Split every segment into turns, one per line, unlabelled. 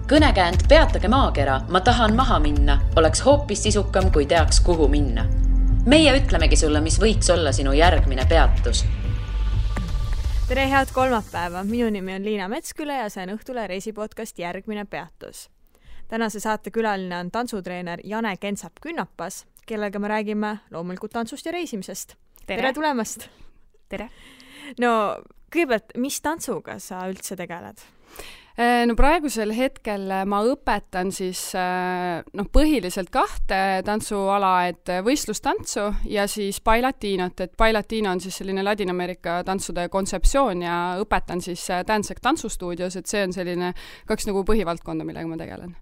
Kõnekäänd Peatage maakera, ma tahan maha minna, oleks hoopis sisukam, kui teaks, kuhu minna. Meie ütlemegi sulle, mis võiks olla sinu järgmine peatus.
Tere, head kolmapäeva! Minu nimi on Liina Metsküle ja see on Õhtule reisipodcast Järgmine peatus. Tänase saate külaline on tantsutreener Jane Kensap-Künnapas, kellega me räägime loomulikult tantsust ja reisimisest. Tere tulemast!
Tere!
No, kõigepealt, mis tantsuga sa üldse tegeled?
No praegusel hetkel ma õpetan siis põhiliselt 2 tantsuala, et võistlustantsu ja siis bailatinot, et bailatino on siis selline Ladina-Ameerika tantsude kontseptsioon ja õpetan siis Dancec tantsustuudios, et see on selline 2 nagu põhivaldkonda, millega ma tegelen.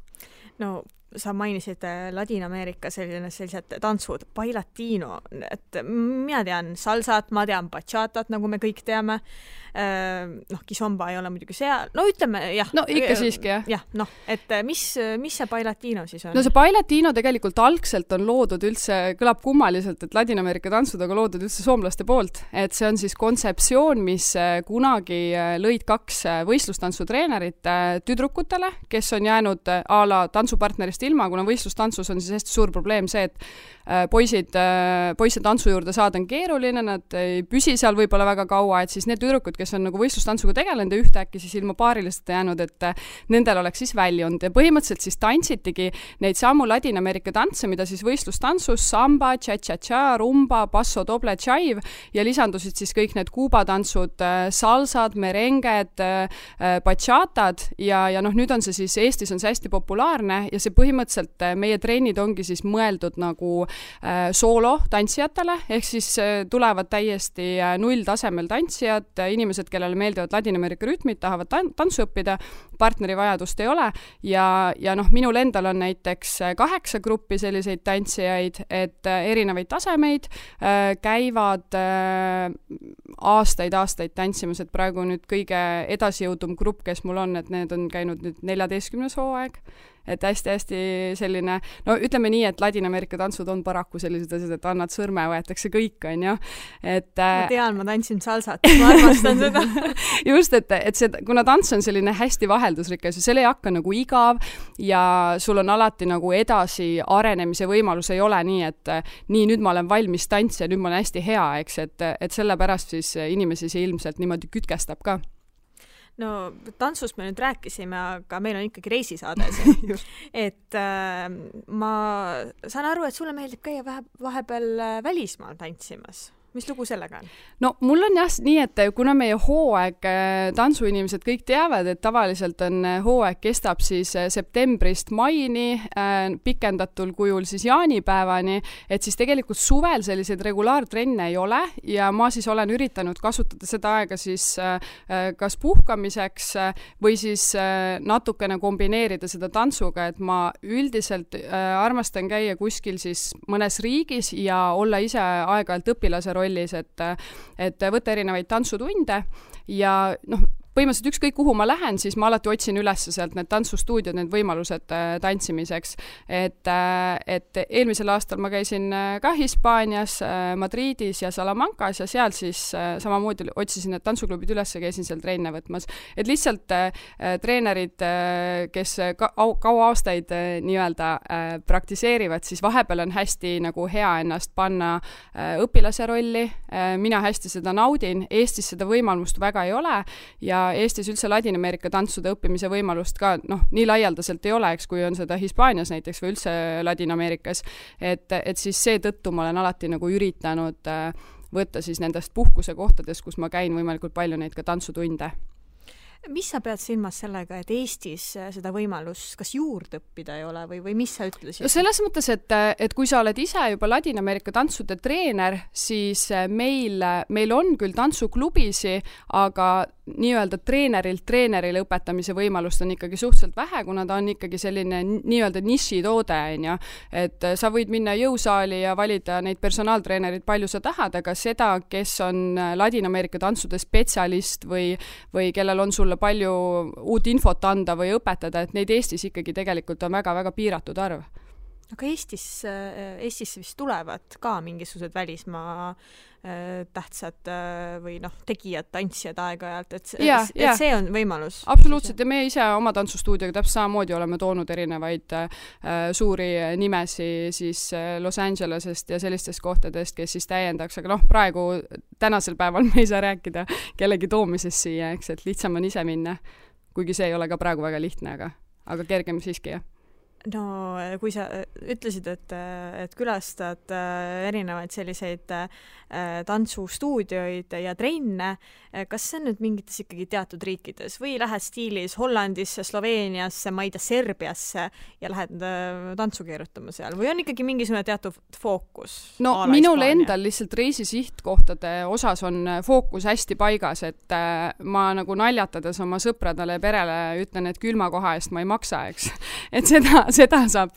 No, sa mainisid Ladina-Ameerika sellised tantsud, bailatino, et mina tean salsat, ma tean bachatat, nagu me kõik teame. Kizomba ei ole muidugi seal. No ütleme, jah.
No ikka siiski, jah.
Jah, et mis see bailatino siis on?
No see bailatino tegelikult algselt on loodud üldse, kõlab kummaliselt, et Ladina-Ameerika tantsud on loodud üldse soomlaste poolt. Et see on siis kontseptsioon, mis kunagi lõid 2 võistlustantsuttreenerit tüdrukutele, kes on jäänud a la tantsupartnerist ilma, kuna võistlustantsus on siis hästi suur probleem see, et poisse tantsu juurde saada on keeruline, nad ei püsi seal võib-olla väga kaua, et siis need tüdrukud, kes on nagu võistlustantsuga tegelenud ja ühtäkki siis ilma paarilist jäänud, et nendel oleks siis väljund. Ja põhimõtteliselt siis tantsitigi neid samu Ladina-Ameerika tantse, mida siis võistlustantsus, samba, cha-cha-cha, rumba, basso, doble, chive ja lisandusid siis kõik need kuubatantsud, salsad, merenged, bachatad ja nüüd on see siis, Eestis on see hästi populaarne ja see põhimõtteliselt meie trennid ongi siis mõeldud nagu soolo tantsijatele, ehk siis tulevad täiesti nulltasemel tantsijad, inimesed, kellele meeldivad Ladina-Ameerika rütmid, tahavad tantsu õppida, partneri vajadust ei ole ja minul endal on näiteks 8 gruppi selliseid tantsijaid, et erinevaid tasemeid käivad aastaid tantsimas, et praegu nüüd kõige edasijõudum grupp, kes mul on, et need on käinud nüüd 14. hooaeg. Et hästi selline, no ütleme nii, et Ladina-Ameerika tantsud on paraku sellised asjad, et annad sõrme, võetakse kõik, on ju.
Ma tean, ma tantsin salsat, ma armastan seda.
Just, et see, kuna tants on selline hästi vaheldusrikas ja selle ei hakka nagu igav ja sul on alati nagu edasi arenemise võimalus, ei ole nii, et nii, nüüd ma olen valmis tants ja nüüd ma olen hästi hea, eks, et sellepärast siis inimesi see ilmselt niimoodi kütkestab ka.
No, tantsust me nüüd rääkisime, aga meil on ikkagi reisisaade. Et ma saan aru, et sulle meeldib käia vahepeal välismaal tantsimas. Mis lugu sellega on?
No, mul on jah nii, et kuna meie hooaeg, tantsuinimesed kõik teavad, et tavaliselt on hooaeg kestab siis septembrist maini, pikendatul kujul siis jaanipäevani, et siis tegelikult suvel selliseid regulaartrenne ei ole ja ma siis olen üritanud kasutada seda aega siis kas puhkamiseks või siis natukene kombineerida seda tantsuga, et ma üldiselt armastan käia kuskil siis mõnes riigis ja olla ise aeg-ajalt õpilase rollis, et võtta erinevaid tantsutunde ja põhimõtteliselt ükskõik kuhu ma lähen, siis ma alati otsin üles sealt need tantsustuudiod, need võimalused tantsimiseks. Et eelmisel aastal ma käisin ka Hispaanias, Madridis ja Salamancas ja seal siis samamoodi otsisin need tantsuklubid üles ja käisin seal trenne võtmas. Et lihtsalt treenerid, kes kaua aastaid nii-öelda praktiseerivad, siis vahepeal on hästi nagu hea ennast panna õpilase rolli. Mina hästi seda naudin, Eestis seda võimalust väga ei ole ja Eestis üldse Ladina-Ameerika tantsude õppimise võimalust ka nii laialdaselt ei ole, eks, kui on seda Hispaanias näiteks või üldse Ladina-Ameerikas. Et siis seetõttu ma olen alati nagu üritanud võtta siis nendest puhkuse kohtadest, kus ma käin võimalikult palju neid ka tantsutunde.
Mis sa pead silmas sellega, et Eestis seda võimalust kas juurde õppida ei ole või mis sa ütlesid?
Selles mõttes, et kui sa oled ise juba Ladina-Ameerika tantsude treener, siis meil on küll tantsuklubisi, aga nii-öelda treenerile õpetamise võimalust on ikkagi suhteliselt vähe, kuna ta on ikkagi selline nii-öelda nišitoode, et sa võid minna jõusaali ja valida neid personaaltreenerid palju sa tahad, aga seda, kes on Ladina-Ameerika tantsude spetsialist või kellel on sulle palju uut infot anda või õpetada, et neid Eestis ikkagi tegelikult on väga-väga piiratud arv.
Aga Eestisse vist tulevad ka mingisugused välismaa tähtsad või tegijad, tantsijad aeg-ajalt, et see on võimalus.
Absoluutselt, ja me ise oma tantsustuudioga täpselt samamoodi oleme toonud erinevaid suuri nimesi siis Los Angelesest ja sellistest kohtadest, kes siis täiendaks, aga praegu tänasel päeval me ei saa rääkida kellegi toomisest siia, eks, et lihtsam on ise minna, kuigi see ei ole ka praegu väga lihtne, aga kergem siiski, jah.
No kui sa ütlesid, et külastad erinevaid selliseid tantsustuudioid ja trenne, kas see on nüüd mingites ikkagi teatud riikides või lähed stiilis Hollandisse, Sloveeniasse, ma ei tea, Serbiasse ja lähed tantsu keerutama seal või on ikkagi mingisugune teatud fookus?
No minul endal lihtsalt reisisihtkohtade osas on fookus hästi paigas, et ma nagu naljatades oma sõpradele ja perele ütlen, et külma koha eest ma ei maksa, eks. Et seda saab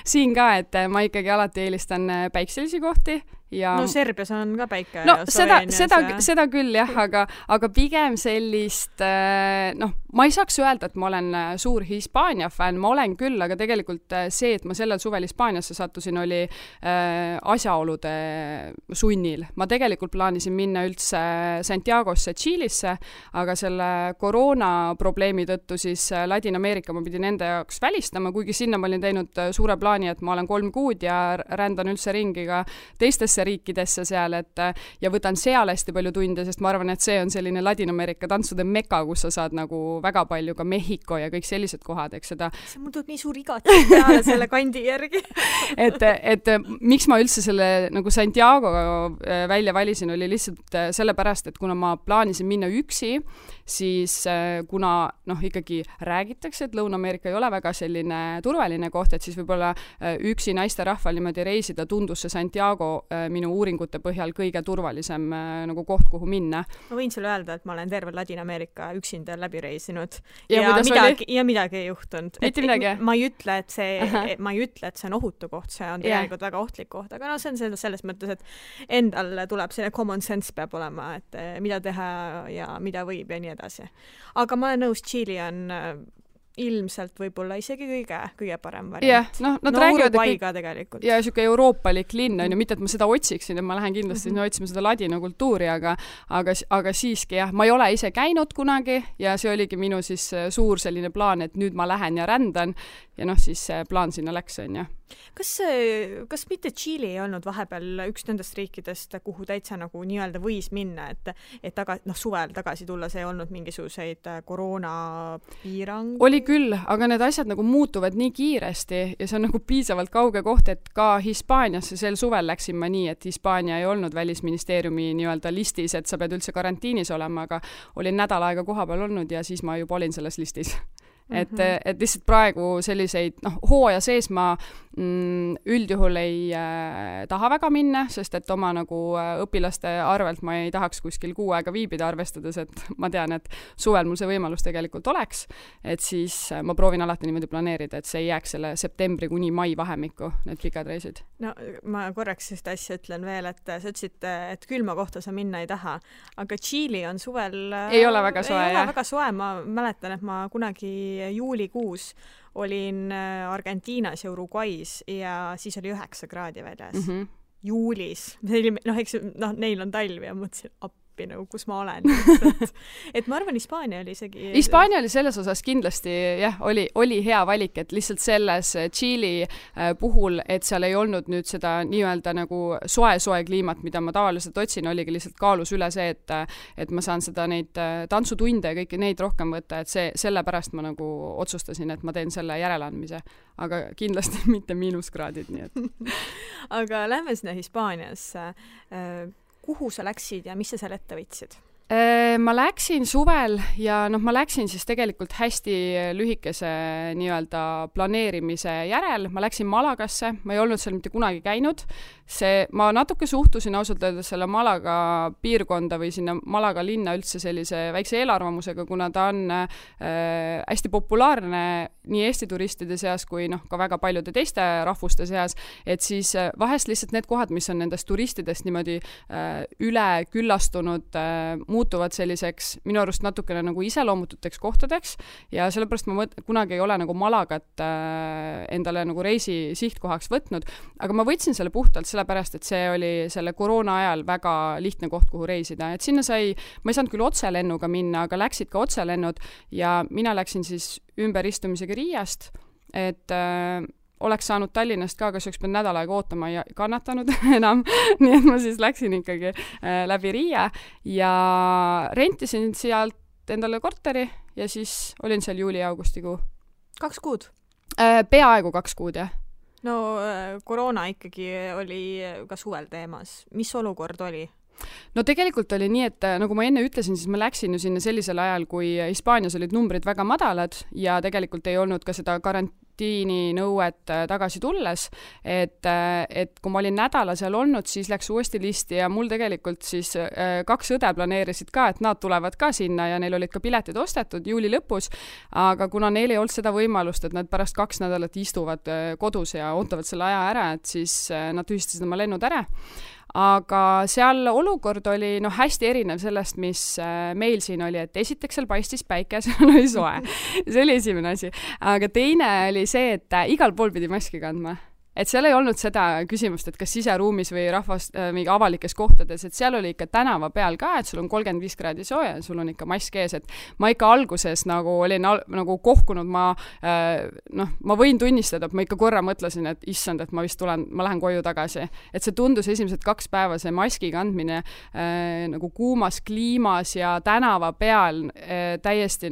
siin ka, et ma ikkagi alati eelistan päikselisi kohti. Ja...
No Serbias on ka päike.
No seda küll jah, aga pigem sellist, ma ei saaks öelda, et ma olen suur Hispaania fänn, ma olen küll, aga tegelikult see, et ma sellel suvel Hispaaniasse sattusin, oli asjaolude sunnil. Ma tegelikult plaanisin minna üldse Santiagosse, Tšiilisse, aga selle koroona probleemi tõttu siis Ladina-Ameerika ma pidin enda jaoks välistama, kuigi sinna ma olin teinud suure plaani, et ma olen 3 kuud ja rändan üldse ringi ka teistesse riikidesse seal, ja võtan seal hästi palju tunde, sest ma arvan, et see on selline Ladina-Ameerika tantsude meka, kus sa saad nagu väga palju ka Mehhiko ja kõik sellised kohad, eks seda.
See mul tuleb nii suur igatsus peale selle kandi järgi.
et miks ma üldse selle nagu Santiago välja valisin, oli lihtsalt sellepärast, et kuna ma plaanisin minna üksi, siis kuna ikkagi räägitakse, et Lõuna-Ameerika ei ole väga selline turvaline koht, et siis võib-olla üksi naiste rahval niimoodi reisida tundus see Santiago minu uuringute põhjal kõige turvalisem nagu koht, kuhu minna.
Ma võin sulle öelda, et ma olen terve Ladina-Ameerika üksinda läbi reisinud ja midagi ei juhtunud.
Mitte midagi?
Ma ei ütle, et see on ohutu koht, see on tegelikult väga ohtlik koht, aga see on selles mõttes, et endal tuleb selline common sense peab olema, et mida teha ja mida võib ja nii edasi. Aga ma olen nõus, Tšiili on ilmselt võib-olla isegi kõige parem variant.
Uruguay ka tegelikult. Ja siuke euroopalik linn on ju, mitte et ma seda otsiksin, et ma lähen kindlasti otsima seda ladina kultuuri, aga siiski jah, ma ei ole ise käinud kunagi ja see oligi minu siis suur selline plaan, et nüüd ma lähen ja rändan ja siis see plaan sinna läks, on ju.
Kas mitte Tšiili ei olnud vahepeal üks nendest riikidest, kuhu täitsa nagu nii-öelda võis minna, et suvel tagasi tulla, see ei olnud mingisuguseid koroonapiirang?
Oli küll, aga need asjad nagu muutuvad nii kiiresti ja see on nagu piisavalt kauge koht, et ka Hispaaniasse sel suvel läksin ma nii, et Hispaania ei olnud välisministeeriumi nii-öelda listis, et sa pead üldse karantiinis olema, aga olin nädal aega kohapeal olnud ja siis ma juba olin selles listis. Et lihtsalt praegu selliseid, hooaja sees ma üldjuhul ei taha väga minna, sest et oma nagu õpilaste arvelt ma ei tahaks kuskil 6 aega viibida, arvestades, et ma tean, et suvel mul see võimalus tegelikult oleks, et siis ma proovin alati niimoodi planeerida, et see ei jääks selle septembri kuni mai vahemikku, need pikad reisid.
No ma korraks sellist asja ütlen veel, et sa ütlesid, et külma kohta sa minna ei taha, aga Tšiili on suvel
ei ole väga soe,
ma mäletan, et ma kunagi juulikuus olin Argentiinas ja Uruguay's ja siis oli 9 kraadi väljas. Juulis. Neil on talv ja mõtlesin, nagu, kus ma olen. Et ma arvan, Hispaania oli isegi...
Hispaania oli selles osas kindlasti, jah, oli hea valik, et lihtsalt selles Tšiili puhul, et seal ei olnud nüüd seda nii-öelda nagu soe kliimat, mida ma tavaliselt otsin, oligi lihtsalt kaalus üle see, et ma saan seda neid tantsutunde ja kõiki neid rohkem võtta, et sellepärast ma nagu otsustasin, et ma teen selle järeleandmise. Aga kindlasti mitte miinuskraadid, nii et...
Aga lähme sinna Hispaaniasse. Kuhu sa läksid ja mis sa seal ette võtsid?
Ma läksin suvel ja ma läksin siis tegelikult hästi lühikese nii-öelda planeerimise järel. Ma läksin Malagasse, ma ei olnud seal mitte kunagi käinud. Ma natuke suhtusin ausalt öeldes selle Malaga piirkonda või sinna Malaga linna üldse sellise väikse eelarvamusega, kuna ta on hästi populaarne nii Eesti turistide seas kui ka väga paljude teiste rahvuste seas, et siis vahest lihtsalt need kohad, mis on nendest turistidest niimoodi üle küllastunud, muutuvad selliseks minu arust natukene nagu iseloomututeks kohtadeks ja sellepärast ma kunagi ei ole nagu Malagat endale nagu reisi sihtkohaks võtnud, aga ma võtsin selle puhtalt sellepärast, et see oli selle koroona ajal väga lihtne koht, kuhu reisida, et sinna ma ei saanud küll otselennuga minna, aga läksid ka otselennud ja mina läksin siis ümberistumisega Riiast, et oleks saanud Tallinnast ka, kas üks pead nädal aega ootama ja kannatanud enam, nii et ma siis läksin ikkagi läbi Riia ja rentisin sealt endale korteri ja siis olin seal juuli-augustikuu.
2 kuud?
Peaaegu 2 kuud, jah.
No koroona ikkagi oli ka suvel teemas. Mis olukord oli?
No tegelikult oli nii, et nagu ma enne ütlesin, siis ma läksin ju sinna sellisel ajal, kui Hispaanias olid numbrid väga madalad ja tegelikult ei olnud ka seda karantiininõuet tagasi tulles, et kui ma olin nädala seal olnud, siis läks uuesti listi ja mul tegelikult siis 2 õde planeerisid ka, et nad tulevad ka sinna ja neil olid ka piletid ostetud juuli lõpus, aga kuna neil ei olnud seda võimalust, et nad pärast 2 nädalat istuvad kodus ja ootavad selle aja ära, et siis nad tühistasid oma lennud ära. Aga seal olukord oli hästi erinev sellest, mis meil siin oli, et esiteks seal paistis päike, seal oli soe. See oli esimene asi. Aga teine oli see, et igal pool pidi maski kandma. Et seal ei olnud seda küsimust, et kas siseruumis või mingi avalikes kohtades, et seal oli ikka tänava peal ka, et sul on 35 kraadi sooja ja sul on ikka mask ees, et ma ikka alguses nagu olin nagu kohkunud, ma võin tunnistada, et ma ikka korra mõtlesin, et issand, et ma lähen koju tagasi. Et see tundus esimesed 2 päeva see maski kandmine nagu kuumas kliimas ja tänava peal täiesti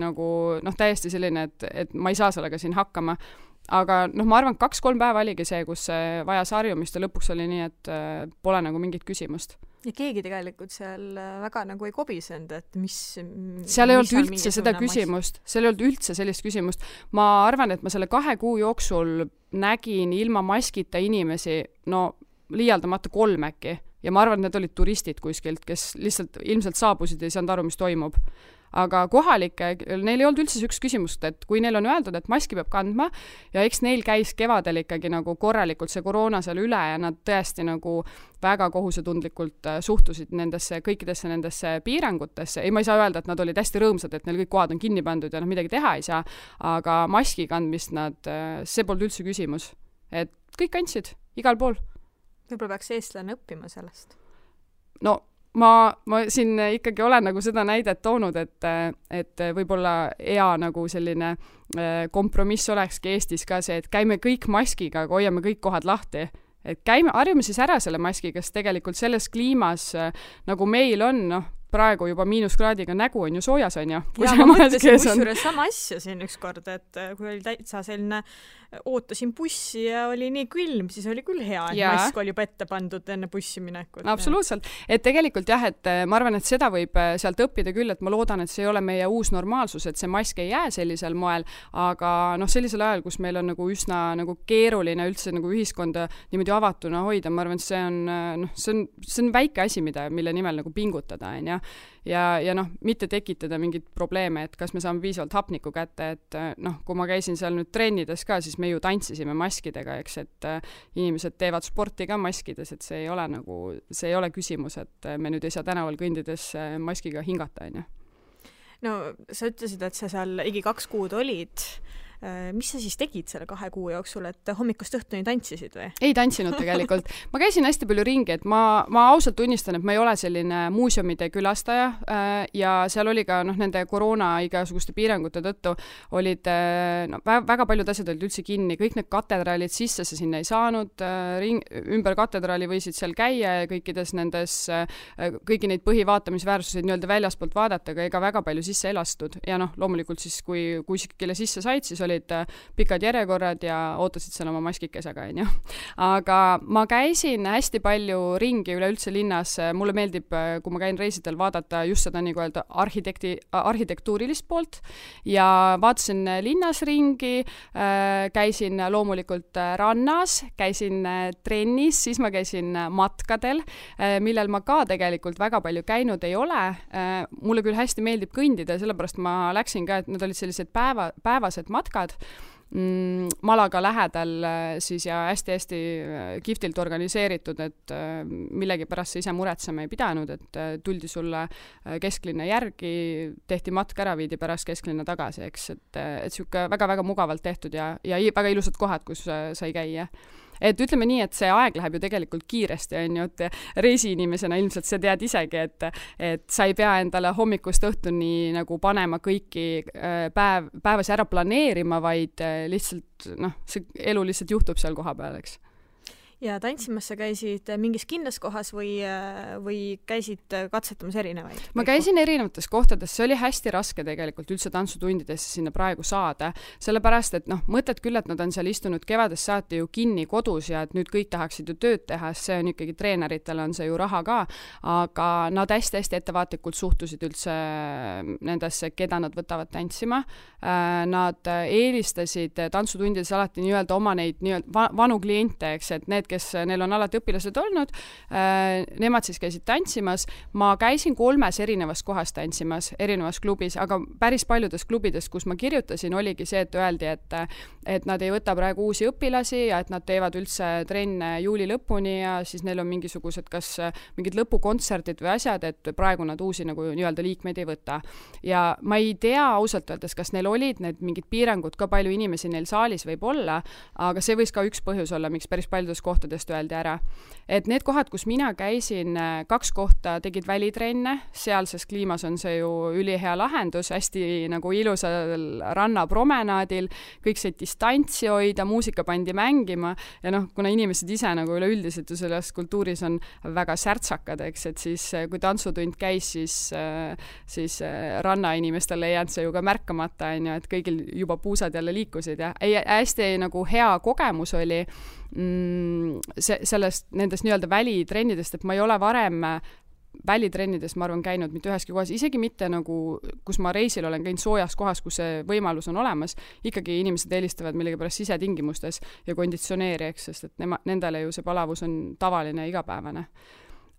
selline, et ma ei saa sellega siin hakkama. Aga ma arvan, 2-3 päeva oligi see, kus vajas harjumist ja lõpuks oli nii, et pole nagu mingit küsimust.
Ja keegi tegelikult seal väga nagu ei kobisenud, et mis...
Seal ei olnud üldse seda küsimust. Seal ei olnud üldse sellist küsimust. Ma arvan, et ma selle 2 kuu jooksul nägin ilma maskita inimesi, liialdamata 3 äkki. Ja ma arvan, et need olid turistid kuskilt, kes lihtsalt ilmselt saabusid ja ei saanud aru, mis toimub. Aga kohalike, neil ei olnud üldse üks küsimust, et kui neil on öeldud, et maski peab kandma ja eks neil käis kevadel ikkagi nagu korralikult see koroona seal üle ja nad tõesti nagu väga kohusetundlikult suhtusid kõikidesse nendesse piirangutesse. Ei, ma ei saa öelda, et nad olid hästi rõõmsad, et neil kõik kohad on kinni pandud ja midagi teha ei saa, aga maski kandmist see polnud üldse küsimus. Et kõik kandsid, igal pool.
Võib-olla peaks eestlane õppima sellest?
Ma siin ikkagi olen nagu seda näidet toonud, et võib-olla hea nagu selline kompromiss olekski Eestis ka see, et käime kõik maskiga, aga hoiame kõik kohad lahti. Et harjume siis ära selle maskiga, sest tegelikult selles kliimas, nagu meil on, praegu juba -kraadiga nägu on ju soojas, on ju.
Ja ma mõtlesin kusjuures sama asja siin üks kord, et kui oli täitsa selline, ootasin bussi ja oli nii külm, siis oli küll hea, et mask oli juba ette pandud enne bussi minekut.
Absoluutselt. Et tegelikult jah, et ma arvan, et seda võib sealt õppida küll, et ma loodan, et see ei ole meie uus normaalsus, et see mask ei jää sellisel moel, aga sellisel ajal, kus meil on nagu üsna nagu keeruline üldse nagu ühiskonda niimoodi avatuna hoida, ma arvan, et see on väike asi, mille nimel nagu pingutada, on ja. Ja mitte tekitada mingit probleeme, et kas me saame piisavalt hapnikku kätte, et kui ma käisin seal nüüd trennides ka, siis me ju tantsisime maskidega, eks, et inimesed teevad sporti ka maskides, et see ei ole küsimus, et me nüüd ei saa tänaval kõndides maskiga hingata, on ju.
No sa ütlesid, et sa seal ligi 2 kuud olid. Mis sa siis tegid selle 2 kuu jooksul, et hommikust õhtuni tantsisid või? Ei
tantsinud tegelikult. Ma käisin hästi palju ringi, et ma ausalt tunnistan, et ma ei ole selline muuseumide külastaja ja seal oli ka nende koroona igasuguste piirangute tõttu olid väga paljud asjad olid üldse kinni, kõik need katedraalid sisse sa sinna ei saanud, ümber katedraali võisid seal käia ja kõikides nendes, kõiki neid põhivaatamisväärsuseid nii-öelda väljaspoolt vaadata, aga ega väga palju sisse elastud ja loomulikult siis, kui kelle sisse said, siis olid pikad järjekorrad ja ootasid seal oma maskikesega, on ju. Aga ma käisin hästi palju ringi üleüldse linnas. Mulle meeldib, kui ma käin reisidel, vaadata just seda nii öelda arhitektuurilist poolt ja vaatasin linnas ringi, käisin loomulikult rannas, käisin trennis, siis ma käisin matkadel, millel ma ka tegelikult väga palju käinud ei ole. Mulle küll hästi meeldib kõndida, sellepärast ma läksin ka, et need olid sellised päevased matkad Malaga lähedal siis ja hästi-hästi kihvtilt organiseeritud, et millegipärast sa ise muretsema ei pidanud, et tuldi sulle kesklinna järgi, tehti matk ära, viidi pärast kesklinna tagasi, eks, et siuke väga-väga mugavalt tehtud ja väga ilusad kohad, kus sai käia. Et ütleme nii, et see aeg läheb ju tegelikult kiiresti, on ju, et reisiinimesena ilmselt sa tead isegi, et sa ei pea endale hommikust õhtuni nagu panema kõiki päevasi ära planeerima, vaid lihtsalt, see elu lihtsalt juhtub seal koha peal, eks.
Ja tantsimas sa käisid mingis kindlas kohas või käisid katsetamas erinevaid?
Ma käisin erinevates kohtades, see oli hästi raske tegelikult üldse tantsutundidesse sinna praegu saada, sellepärast, et mõtled küll, et nad on seal istunud kevadest saati ju kinni kodus ja et nüüd kõik tahaksid ju tööd teha, see on ikkagi treeneritele on see ju raha ka, aga nad hästi-hästi ettevaatlikult suhtusid üldse nendesse, keda nad võtavad tantsima. Nad eelistasid tantsutundides alati nii-öelda oma neid vanu kliente, eks, et need, kes neil on alati õpilased olnud, nemad siis käisid tantsimas. Ma käisin 3 erinevas kohas tantsimas, erinevas klubis, aga päris paljudes klubides, kus ma kirjutasin, oligi see, et öeldi, et nad ei võta praegu uusi õpilasi ja et nad teevad üldse trenne juuli lõpuni ja siis neil on mingisugused kas mingid lõpukontserdid või asjad, et praegu nad uusi nagu nii-öelda liikmeid ei võta. Ja ma ei tea ausalt öeldes, kas neil olid need mingid piirangud, ka palju inimesi neil saalis võib olla, aga see võis ka üks põhjus olla, miks päris paljudes kohtadest öeldi ära. Et need kohad, kus mina käisin, 2 kohta tegid välitrenne, sealses kliimas on see ju ülihea lahendus, hästi nagu ilusal rannapromenaadil, kõik said distantsi hoida, muusika pandi mängima ja kuna inimesed ise nagu üleüldiselt ju selles kultuuris on väga särtsakad, eks, et siis kui tantsutund käis, siis rannainimestel ei jäänud see ju ka märkamata, on ju, et kõigil juba puusad jälle liikusid ja hästi nagu hea kogemus oli nendest nii-öelda välitrennidest, et ma ei ole varem välitrennides, ma arvan, käinud mitte üheski kohas, isegi mitte nagu, kus ma reisil olen käinud soojas kohas, kus see võimalus on olemas, ikkagi inimesed eelistavad millegipärast sisetingimustes ja konditsioneeri, eks, sest et nendele ju see palavus on tavaline igapäevane.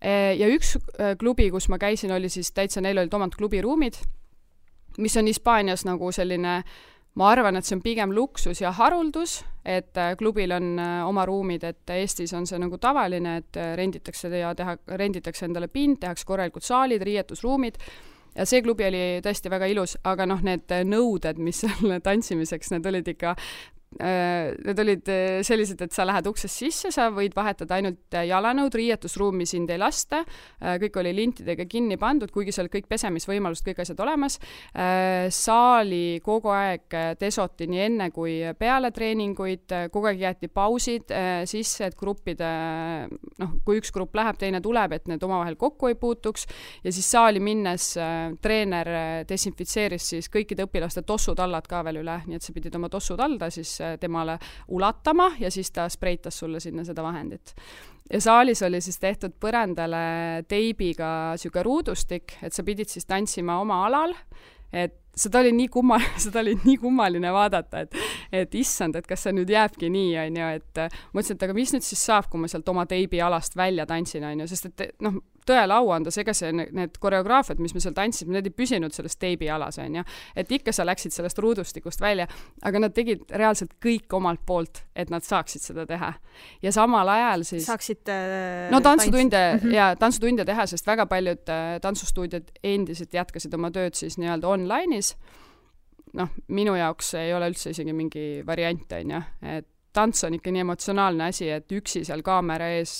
Ja üks klubi, kus ma käisin, oli siis täitsa, neil olid omad klubiruumid, mis on Hispaanias nagu selline, ma arvan, et see on pigem luksus ja haruldus, et klubil on oma ruumid, et Eestis on see nagu tavaline, et renditakse endale pind, tehakse korralikud saalid, riietusruumid ja see klubi oli tõesti väga ilus, aga need nõuded, mis selle tantsimiseks, need olid ikka need olid sellised, et sa lähed uksest sisse, sa võid vahetada ainult jalanõud, riietusruumi sind ei lasta, kõik oli lintidega kinni pandud, kuigi seal kõik pesemisvõimalust, kõik asjad olemas. Saali kogu aeg desoti nii enne kui peale treeninguid, kogu aeg jäeti pausid sisse, et gruppide, kui üks grupp läheb, teine tuleb, et need omavahel kokku ei puutuks ja siis saali minnes treener desinfitseeris siis kõikide õpilaste tossutallad ka veel üle, nii et sa pidid oma tossutalda siis temale ulatama ja siis ta spreitas sulle sinna seda vahendit. Ja saalis oli siis tehtud põrandale teibiga siuke ruudustik, et sa pidid siis tantsima oma alal, et seda oli nii kummaline vaadata, et issand, et kas see nüüd jääbki nii, on ju, et mõtlesin, et aga mis nüüd siis saab, kui ma sealt oma teibi alast välja tantsin, on ju, sest et tõele au anda, ega need koreograafiad, mis me seal tantsime, need ei püsinud sellest teibi alas, on ju, et ikka sa läksid sellest ruudustikust välja, aga nad tegid reaalselt kõik omalt poolt, et nad saaksid seda teha. Ja samal ajal siis
saaksid
tantsutunde teha, sest väga paljud tantsustuudiod endiselt jätkasid oma tööd siis nii-öelda online'is. Minu jaoks ei ole üldse isegi mingi variant, on ju, et tants on ikka nii emotsionaalne asi, et üksi seal kaamera ees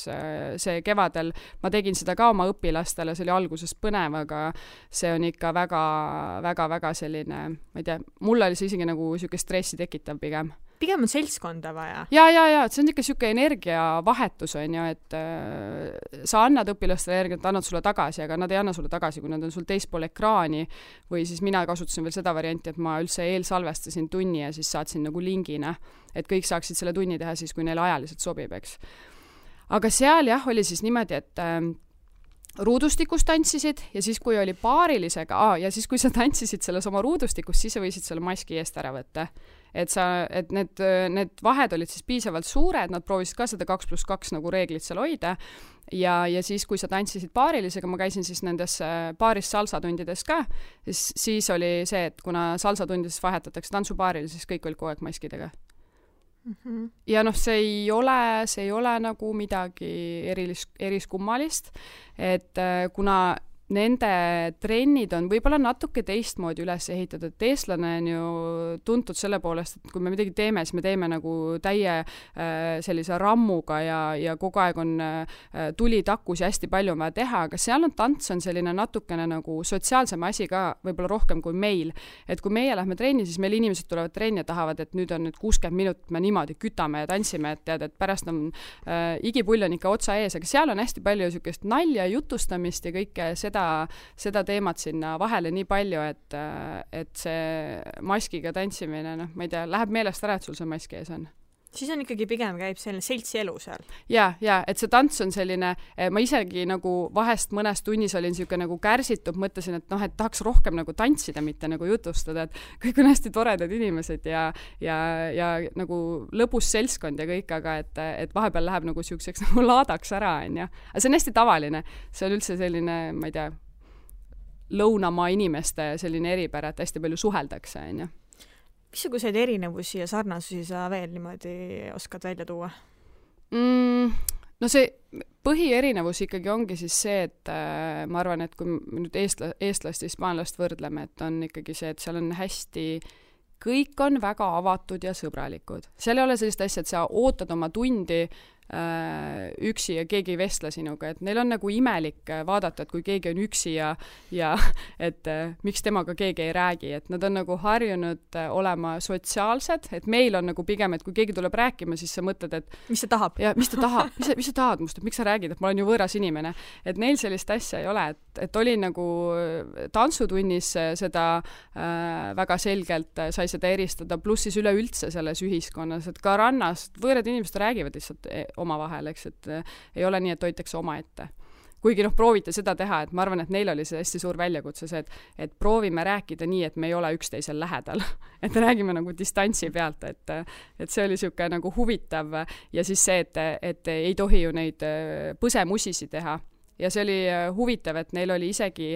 see kevadel, ma tegin seda ka oma õpilastele, see oli alguses põnev, aga see on ikka väga selline, ma ei tea, mulle oli see isegi nagu siuke stressi tekitav pigem.
Pigem on seltskonda vaja.
Ja, see on ikka siuke energiavahetus, on ju, et sa annad õpilastele energiat, annad sulle tagasi, aga nad ei anna sulle tagasi, kui nad on sul teispool ekraani või siis mina kasutasin veel seda varianti, et ma üldse eelsalvestasin tunni ja siis saatsin nagu lingina, et kõik saaksid selle tunni teha siis, kui neile ajaliselt sobib, eks. Aga seal jah, oli siis niimoodi, ruudustikus tantsisid ja siis, kui oli paarilisega, ja siis, kui sa tantsisid selles oma ruudustikus, siis sa võisid selle maski eest ära võtta. Et need vahed olid siis piisavalt suured, nad proovisid ka seda 2+2 nagu reeglit seal hoida ja siis, kui sa tantsisid paarilisega, ma käisin siis nendes paaris salsatundides ka, siis oli see, et kuna salsatundides vahetatakse tantsupaarile, siis kõik olid kogu aeg maskidega. Ja see ei ole nagu midagi eriskummalist, et kuna nende trennid on võib-olla natuke teistmoodi üles ehitatud, et eestlane on ju tuntud selle poolest, et kui me midagi teeme, siis me teeme nagu täie sellise rammuga ja kogu aeg on tuli takus ja hästi palju on vaja teha, aga seal tants on selline natukene nagu sotsiaalsem asi ka võib-olla rohkem kui meil. Et kui meie lähme trenni, siis meil inimesed tulevad trenni ja tahavad, et nüüd on 60 minutit me niimoodi kütame ja tantsime, et tead, et pärast on igipull on ikka otsa ees, aga seal on hästi palju sükest nalja, jutustamist ja kõike seda teemat sinna vahele nii palju, et see maskiga tantsimine, ma ei tea, läheb meelest ära, et sul see mask ees on.
Siis on ikkagi pigem käib selline seltsi elu seal.
Ja, et see tants on selline, ma isegi nagu vahest mõnes tunnis olin selline nagu kärsitud, mõtlesin, et tahaks rohkem nagu tantsida, mitte nagu jutustada, et kõik on hästi toredad inimesed ja nagu lõbus seltskond ja kõik, aga et vahepeal läheb nagu siukseks nagu laadaks ära, on ja. Aga see on hästi tavaline, see on üldse selline, ma ei tea, lõunamaa inimeste selline eripära, et hästi palju suheldakse, on ja.
Missuguseid erinevusi ja sarnasusi sa veel niimoodi oskad välja tuua?
No see põhierinevus ikkagi ongi siis see, et ma arvan, et kui me nüüd eestlast ja hispaanlast võrdleme, et on ikkagi see, et seal on hästi, kõik on väga avatud ja sõbralikud. Seal ei ole sellist asja, et sa ootad oma tundi üksi ja keegi ei vestle sinuga, et neil on nagu imelik vaadata, et kui keegi on üksi ja et miks temaga keegi ei räägi, et nad on nagu harjunud olema sotsiaalsed, et meil on nagu pigem, et kui keegi tuleb rääkima, siis sa mõtled, et
mis ta tahab?
Ja, mis ta tahab? Mis sa tahad must, et miks sa räägid, et ma olen ju võõras inimene, et neil sellist asja ei ole, et oli nagu tantsutunnis seda väga selgelt sai seda eristada, pluss siis üleüldse selles ühiskonnas, et ka rannas võõrad inimesed räägivad lihtsalt omavahel, eks, et ei ole nii, et hoitakse omaette. Kuigi proovite seda teha, et ma arvan, et neil oli see hästi suur väljakutse see, et proovime rääkida nii, et me ei ole üksteisel lähedal. Et räägime nagu distantsi pealt, et see oli siuke nagu huvitav ja siis see, et ei tohi ju neid põsemusisi teha. Ja see oli huvitav, et neil oli isegi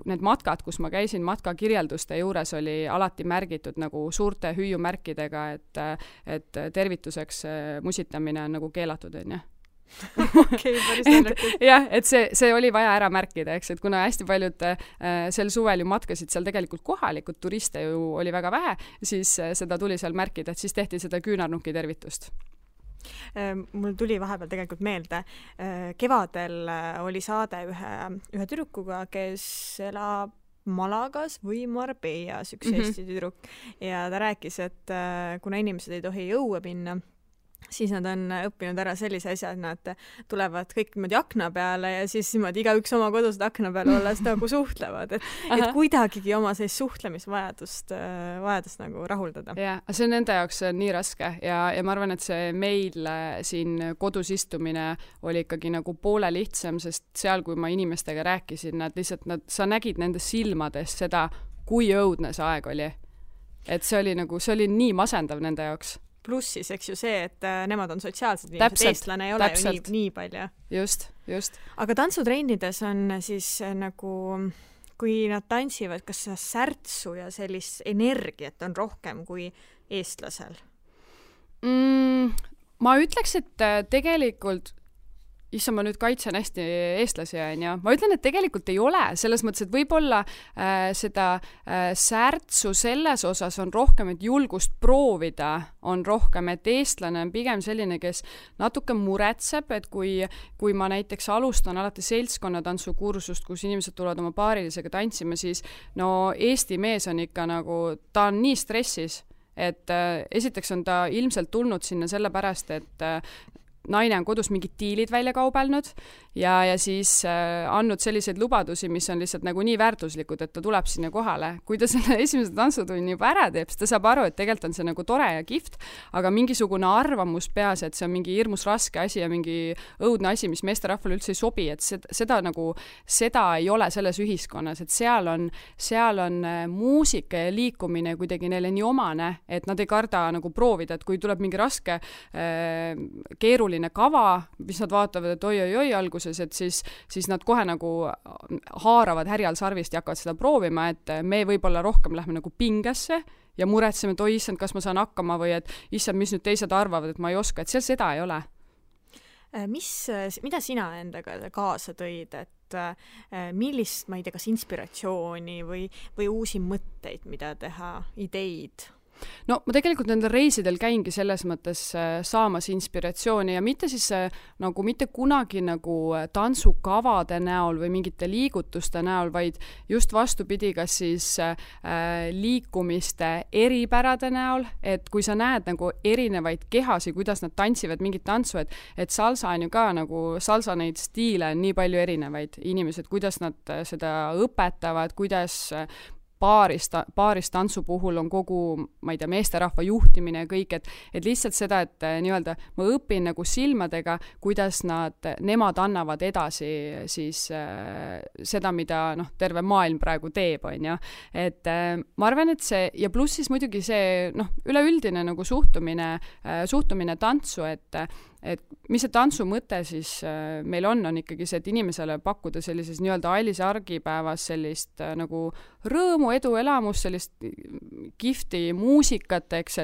need matkad, kus ma käisin, matkakirjelduste juures oli alati märgitud nagu suurte hüüumärkidega, et tervituseks musitamine on nagu keelatud, on ja.
Okei, päris naljakas.
Jah, et see oli vaja ära märkida, eks, et kuna hästi paljud sel suvel ju matkasid seal tegelikult kohalikud, turiste ju oli väga vähe, siis seda tuli seal märkida, et siis tehti seda küünarnuki tervitust.
Mul tuli vahepeal tegelikult meelde, kevadel oli saade ühe tüdrukuga, kes elab Malagas või Marbellas, üks Eesti tüdruk, ja ta rääkis, et kuna inimesed ei tohi õue minna, siis nad on õppinud ära sellise asja, et nad tulevad kõik niimoodi akna peale ja siis niimoodi igaüks oma kodus akna peale olles nagu suhtlevad, et kuidagigi oma sellist suhtlemisvajadust nagu rahuldada.
Ja, see on nende jaoks nii raske ja ma arvan, et see meil siin kodus istumine oli ikkagi nagu poole lihtsam, sest seal, kui ma inimestega rääkisin, sa nägid nende silmades seda, kui õudne see aeg oli. Et see oli nii masendav nende jaoks.
Pluss siis, eks ju see, et nemad on sotsiaalsed inimesed, eestlane ei ole ju nii palju.
Just.
Aga tantsutrennides on siis nagu, kui nad tantsivad, kas see särtsu ja sellist energiat on rohkem kui eestlasel?
Ma ütleks, et tegelikult ma nüüd kaitsen hästi eestlasi, ja ma ütlen, et tegelikult ei ole, selles mõttes, et võib-olla seda särtsu selles osas on rohkem, et julgust proovida on rohkem, et eestlane on pigem selline, kes natuke muretseb, et kui ma näiteks alustan alati seltskonnatantsukursust, kus inimesed tulevad oma paarilisega tantsima, siis Eesti mees on ikka nagu, ta on nii stressis, et esiteks on ta ilmselt tulnud sinna sellepärast, et naine on kodus mingid diilid välja kaubelnud ja siis andnud selliseid lubadusi, mis on lihtsalt nagu nii väärtuslikud, et ta tuleb sinna kohale. Kui ta selle esimese tantsutunni juba ära teeb, siis ta saab aru, et tegelikult on see nagu tore ja kihvt, aga mingisugune arvamus peas, et see on mingi hirmus raske asi ja mingi õudne asi, mis meesterahvale üldse ei sobi, et seda ei ole selles ühiskonnas, et seal on muusika ja liikumine kuidagi neile nii omane, et nad ei karda nagu proovida, et kui tuleb mingi raske keeruline kava, mis nad vaatavad, et oi alguses, et siis nad kohe nagu haaravad härjal sarvist ja hakkavad seda proovima, et me võib-olla rohkem lähme nagu pingesse ja muretseme, et oi issand, kas ma saan hakkama või et issand, mis nüüd teised arvavad, et ma ei oska, et seal seda ei ole.
Mida sina endaga kaasa tõid, et millist, ma ei tea, kas inspiratsiooni või uusi mõtteid, mida teha, ideid?
No ma tegelikult nendel reisidel käingi selles mõttes saamas inspiratsiooni ja mitte siis nagu mitte kunagi nagu tantsukavade näol või mingite liigutuste näol, vaid just vastupidi, kas siis liikumiste eripärade näol, et kui sa näed nagu erinevaid kehasi, kuidas nad tantsivad mingit tantsu, et salsa on ju ka nagu, salsa neid stiile on nii palju erinevaid inimesed, kuidas nad seda õpetavad, kuidas paaris tantsu puhul on kogu, ma ei tea, meesterahva juhtimine ja kõik, et lihtsalt seda, et nii-öelda ma õpin nagu silmadega, kuidas nemad annavad edasi siis seda, mida terve maailm praegu teeb, on ju. Et ma arvan, et see, ja pluss siis muidugi see üleüldine nagu suhtumine tantsu, et mis see tantsu mõte siis meil on ikkagi see, et inimesele pakkuda sellises nii-öelda Ailise argipäevas sellist nagu rõõmu, edu, elamus, sellist kihvti muusikat, eks,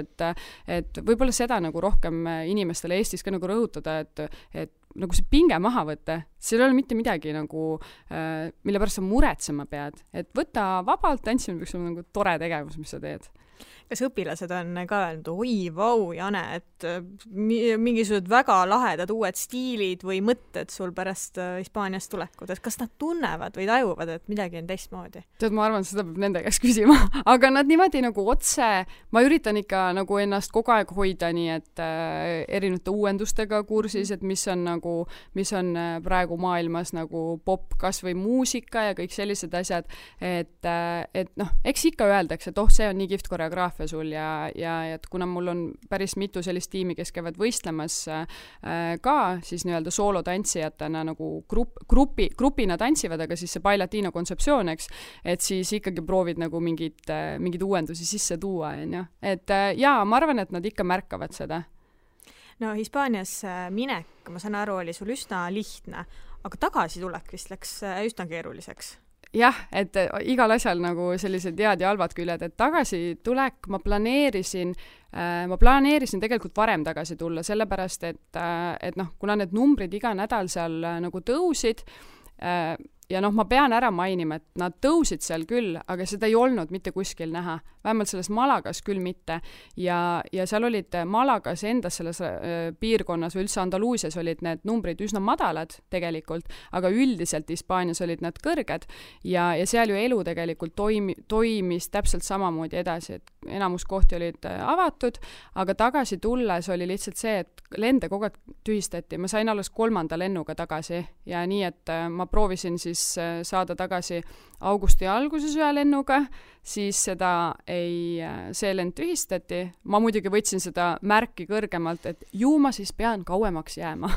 et võib-olla seda nagu rohkem inimestele Eestis ka nagu rõhutada, et nagu see pinge maha võtta, seal ei ole mitte midagi nagu, mille pärast sa muretsema pead, et võtta vabalt, tantsimine peaks olema nagu tore tegevus, mis sa teed.
Kas õpilased on ka öelnud, oi, vau, Jane, et mingisugused väga lahedad uued stiilid või mõtted sul pärast Hispaaniast tulekut, et kas nad tunnevad või tajuvad, et midagi on teistmoodi?
Tead, ma arvan, seda peab nende käest küsima, aga nad niimoodi nagu otse, ma üritan ikka nagu ennast kogu aeg hoida nii, et erinevate uuendustega kursis, et mis on praegu maailmas nagu pop, kas või muusika ja kõik sellised asjad, et eks ikka öeldakse, et see on nii kihvt koreograafia sul ja et kuna mul on päris mitu sellist tiimi, kes käivad võistlemas ka siis nii-öelda soolotantsijatena nagu grupina tantsivad, aga siis see Bailatino kontseptsioon, eks, et siis ikkagi proovid nagu mingeid uuendusi sisse tuua, on ju. Et jaa, ma arvan, et nad ikka märkavad seda.
No Hispaanias minek, ma saan aru, oli sul üsna lihtne, aga tagasi tulek vist läks üsna keeruliseks.
Jah, et igal asjal nagu sellised head ja halvad küljed, et tagasi tulek ma planeerisin tegelikult varem tagasi tulla, sellepärast, et kuna need numbrid iga nädal seal nagu tõusid, ja ma pean ära mainima, et nad tõusid seal küll, aga seda ei olnud mitte kuskil näha. Vähemalt selles Malagas küll mitte. Ja seal olid Malagas endas selles piirkonnas või üldse Andaluusias olid need numbrid üsna madalad tegelikult, aga üldiselt Hispaanias olid nad kõrged ja seal ju elu tegelikult toimis täpselt samamoodi edasi, et enamus kohti olid avatud, aga tagasi tulles oli lihtsalt see, et lende kogu aeg tühistati. Ma sain alles 3. lennuga tagasi ja nii, et ma proovisin siis saada tagasi augusti alguses ühe lennuga, siis see lend tühistati. Ma muidugi võtsin seda märki kõrgemalt, et ju ma siis pean kauemaks jääma.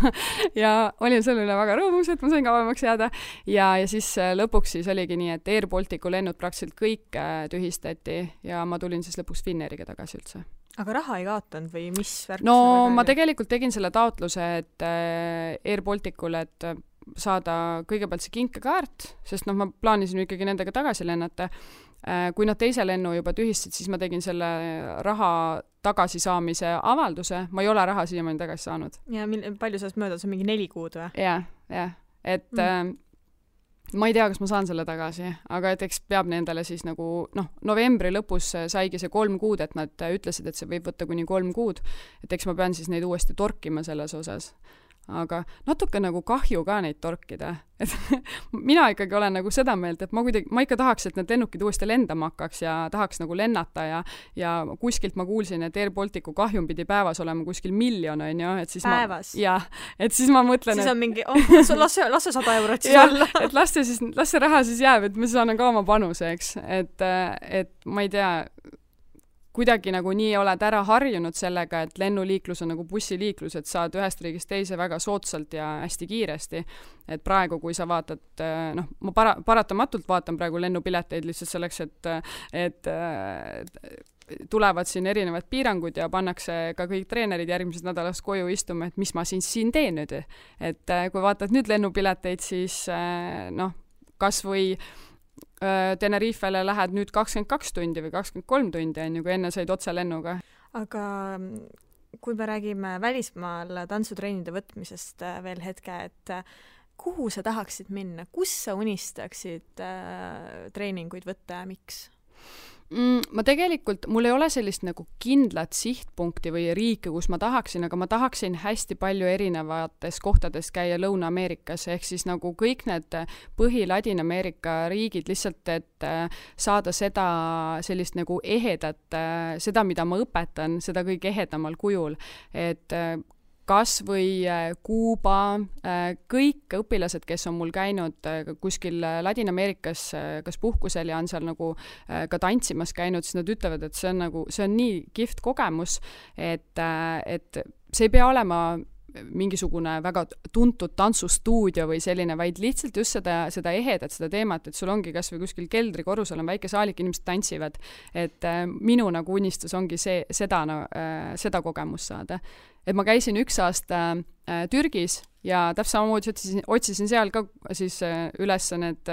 ja olin selle üle väga rõõmus, et ma sain kauemaks jääda. Ja siis lõpuks siis oligi nii, et Air Balticu lennud praktiliselt kõik tühistati ja ma tulin siis lõpuks Finnairiga tagasi üldse.
Aga raha ei kaotanud või mis värk?
No ma tegelikult tegin selle taotluse, et Air Balticule, et saada kõigepealt see kinkekaart, sest ma plaanisin ikkagi nendega tagasi lennata. Kui nad teise lennu juba tühistasid, siis ma tegin selle raha tagasisaamise avalduse. Ma ei ole raha siiamaani tagasi saanud.
Ja palju sellest mööda? See on mingi 4 kuud või?
Jah. Et ma ei tea, kas ma saan selle tagasi, aga et eks peab nendele siis nagu, novembri lõpus saigi see 3 kuud, et nad ütlesid, et see võib võtta kuni 3 kuud. Et eks ma pean siis neid uuesti torkima selles osas. aga natuke nagu kahju ka neid torkida. Et mina ikkagi olen nagu seda meelt, et ma ikka tahaks, et need lennukid uuesti lendama hakkaks ja tahaks nagu lennata ja kuskilt ma kuulsin, et Air Balticu kahjum pidi päevas olema kuskil 1 miljon, on ju, et siis
päevas?
Et siis ma mõtlen,
siis on mingi, lasse 100 eurot siis olla.
Et lasse raha siis jääb, et ma saan ka oma panuse, eks. Et ma ei tea, kuidagi nagu nii oled ära harjunud sellega, et lennuliiklus on nagu bussiliiklus, et saad ühest riigist teise väga soodsalt ja hästi kiiresti. Et praegu, kui sa vaatad, ma paratamatult vaatan praegu lennupileteid lihtsalt selleks, et tulevad siin erinevad piirangud ja pannakse ka kõik treenerid järgmisest nädalast koju istuma, et mis ma siin teen nüüd. Et kui vaatad nüüd lennupileteid, siis kas või Tenerifele lähed nüüd 22 tundi või 23 tundi, on ju, kui enne said otse lennuga.
Aga kui me räägime välismaal tantsutreenide võtmisest veel hetke, et kuhu sa tahaksid minna? Kus sa unistaksid treeninguid võtta ja miks?
Ma tegelikult, mul ei ole sellist nagu kindlat sihtpunkti või riike, kus ma tahaksin, aga ma tahaksin hästi palju erinevates kohtades käia Lõuna-Ameerikas, ehk siis nagu kõik need Ladina-Ameerika riigid lihtsalt, et saada seda sellist nagu ehedat, seda, mida ma õpetan, seda kõik ehedamal kujul, et kas või Kuuba, kõik õpilased, kes on mul käinud kuskil Ladina-Ameerikas kas puhkusel ja on seal nagu ka tantsimas käinud, siis nad ütlevad, et see on nii kihvt kogemus, et see ei pea olema mingisugune väga tuntud tantsustuudio või selline, vaid lihtsalt just seda ehedat, seda teemat, et sul ongi kas või kuskil keldrikorrusel on väike saalik, inimesed tantsivad, et minu nagu unistus ongi seda kogemust saada. Et ma käisin 1 aasta Türgis ja täpselt samamoodi otsisin seal ka siis üles need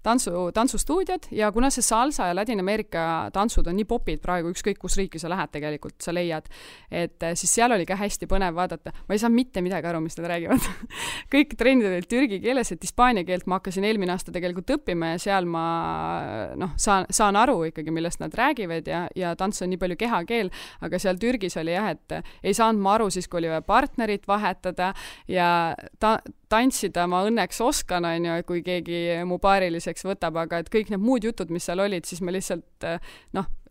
tantsustuudiod ja kuna see salsa ja Ladina-Ameerika tantsud on nii popid praegu, ükskõik kus riiki sa lähed tegelikult, sa leiad, et siis seal oli ka hästi põnev vaadata. Ma ei saa mitte midagi aru, mis nad räägivad. Kõik trennid olid türgi keeles, et hispaania keelt ma hakkasin eelmine aasta tegelikult õppima ja seal ma saan aru ikkagi, millest nad räägivad ja tants on nii palju kehakeel, aga seal Türgis oli jah, et ei saanud ma aru siis, kui oli partnerit vahetada ja tantsida ma õnneks oskan, on ju, kui keegi mu paariliseks võtab, aga et kõik need muud jutud, mis seal olid, siis ma lihtsalt,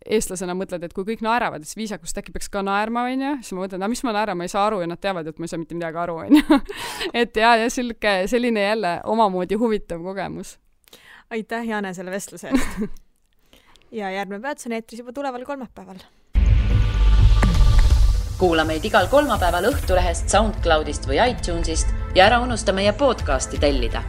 eestlasena mõtled, et kui kõik naeravad, siis viisakust äkki peaks ka naerma, on ju, siis ma mõtlen, mis ma naeran, ma ei saa aru ja nad teavad, et ma ei saa mitte midagi aru, on ju. Et ja selline jälle omamoodi huvitav kogemus.
Aitäh, Jane, selle vestluse eest. Ja järgmine peatus on eetris juba tuleval kolmapäeval.
Kuula meid igal kolmapäeval Õhtulehest, SoundCloudist või iTunesist ja ära unusta meie podcasti tellida.